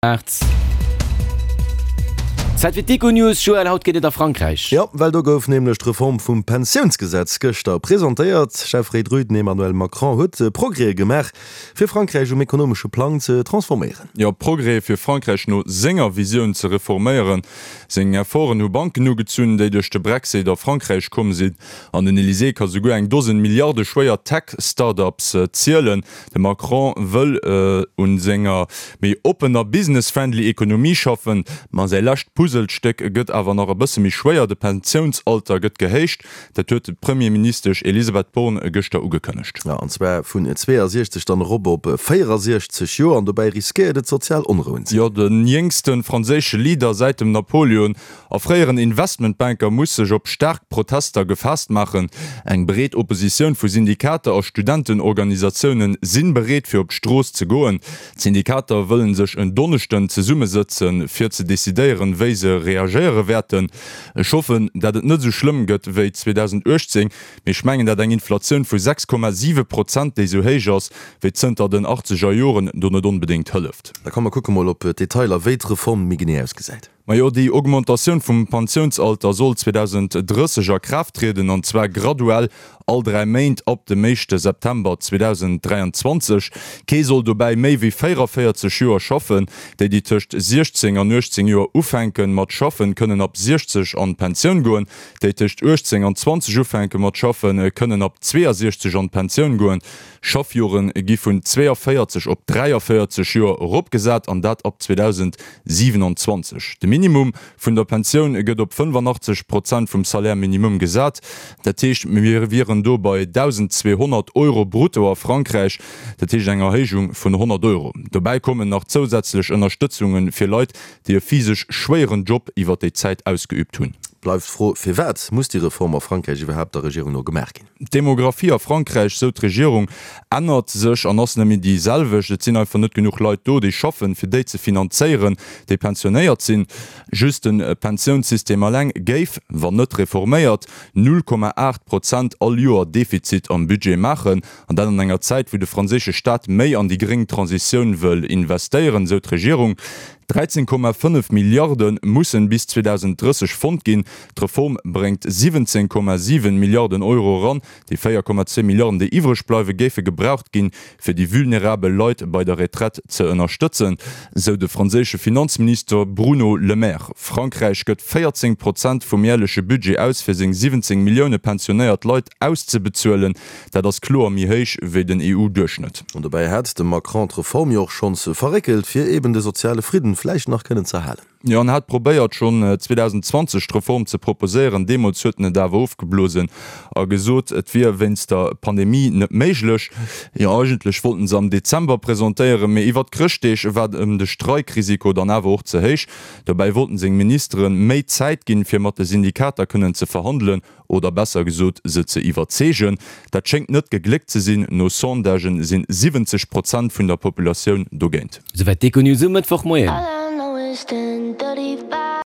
Maart. Zäit fir d'Econews, Joël, haut geet et a Frankräich. Jo, well do gouf nämlech d'Reform vum Pensiounsgesetz gëschter presentéiert. Chefréit Rue, den Emmanuel Macron huet Progrèse gemaach, fir Frankräich um ekonomesche Plang ze transforméieren. Jo, Progrèse fir Frankräich no senger Visioun ze reforméieren. Seng Efforten hu Banken ugezunn, déi duerch de Brexit a Frankräich komm sinn. An den Elysée ka souguer eng Dosen Milliarde schwéier Tech-Start-ups zielen. De Macron wëll un senger méi oppener, business-friendly Ekonomie schaffen, ma säi lescht Puzzlestéck gëtt awer nach e bësse méi schwéier, de Pensiounsalter gëtt gehéicht. Dat huet d'Premierministesch Elisabeth Borne gëschter ugekënnegt. Jo, an zwar vun 62 dann erop op 64 Joer, an dobäi riskéiert et sozial Onrouen ze ginn. Jo, de jéngste franséische Leader säit dem Napoleon A fréieren Investmentbanker muss sech op staark Protester gefaasst maachen. Eng breet Oppositioun vu Syndikater a Studentenorganisatioune si bereet fir op d'Strooss ze goen. D'Syndikater wëllen sech en Donneschden zesummesëtzen, fir ze decidéieren, wéi se reagéiere wäerten. Ech hoffen, dat et net esou schlëmm gëtt wéi 2018, mee ech mengen, dat eng Inflatioun vu 6,7 Prozent, déi esou héich ass wéi zënter den achtzeger Joren, do net onbedéngt hëlleft. Da komm mer kucke mol op d'Detailer, wéi d'Reform méi genee ausgesäit. Majo, déi Augmentatioun vum Pensiounsalter soll 2030 a Kraaft trieden, an zwar graduell all 3 Méint ab dem éischte September 2023. Kee soll dobäi méi wéi 44 Joer schaffen. Déi, déi tëscht 16 an 18 Joer ufänke mat schaffen, kënnen ab 60 an d'Pensioun goen. Déi tëscht 18 an 20 ufänke mat schaffen, kënnen ab 62 an d'Pensioun goen. Schaffjore gi vun 42 op 43 Joer eropgesat, an dat ab 2027. De Minimum vun der Pensioun gëtt op 85 Prozent vum Salaire minimum gesat. Dat heescht, mir wieren do bei 1.200 Euro brutto a Frankräich, dat heescht eng Erhéijung vun 100 Euro. Dobäi kommen nach zousätzlech Ënnerstëtzunge fir Leit, déi e physesch schwéieren Job iwwer déi Zäit ausgeüübt hunn. Bleift d'Fro, Firwat muss déi Reform a Frankräich iwwerhaapt der Regierung no gemaach ginn? D'Demographie a Frankräich, sou d'Regierung, ännert sech an ass net méi déi selwecht. Et sinn einfach net genuch Leit do, déi schaffen, fir déi ze finanzéieren, déi pensionéiert sinn. Just de Pensiounssystem eleng géif, wann net reforméiert, 0,8 Prozent all Joer Defizit am Budget maachen. An dat an enger Zäit, wou de franséische Staat méi an déi gréng Transitioun wëll investéieren, sou d'Regierung. 13,5 Milliarde mussen bis 2030 fonnt ginn. D'Reform bréngt 17,7 Milliarden Euro eran. Déi 4,2 Milliarden, déi iwwreg bleiwen, géife gebraucht ginn, fir déi vulnerabel Leit bei der Retraite ze ënnerstëtzen, sou de franséische Finanzminister Bruno Le Maire. Frankräich gëtt 14 Prozent vum järleche Budget aus, fir seng 17 Millioune pensionéiert Leit auszebezuelen. Dat ass kloer méi héich wéi den EU-Duerchschnëtt. An dobäi hat de Macron d'Reform jo och schonns verréckelt, fir eben de soziale Fridden vläicht nach kënnen z'erhalen. Jo, en hat probéiert schonn 2020 d'Reform ze proposéieren. Deemools huet en et awer ofgeblosen a gesot, et wier wéinst der Pandemie net méiglech. Jo, eigentlech wollt en se am Dezember presentéieren, mee iwwert d'Chrëschtdeeg war em de Streikrisiko dann awer och ze héich. Dobäi wollten seng Ministere méi Zäit ginn, fir mat de Syndikater kënnen ze verhandelen. Oder besser gesot, se ze iwwerzeegen. Dat schéngt net gegléckt ze sinn, no Sondagen sinn 70 Prozent vun der Populatioun dogéint. Souwäit d'Econews um Mëttwochmoien.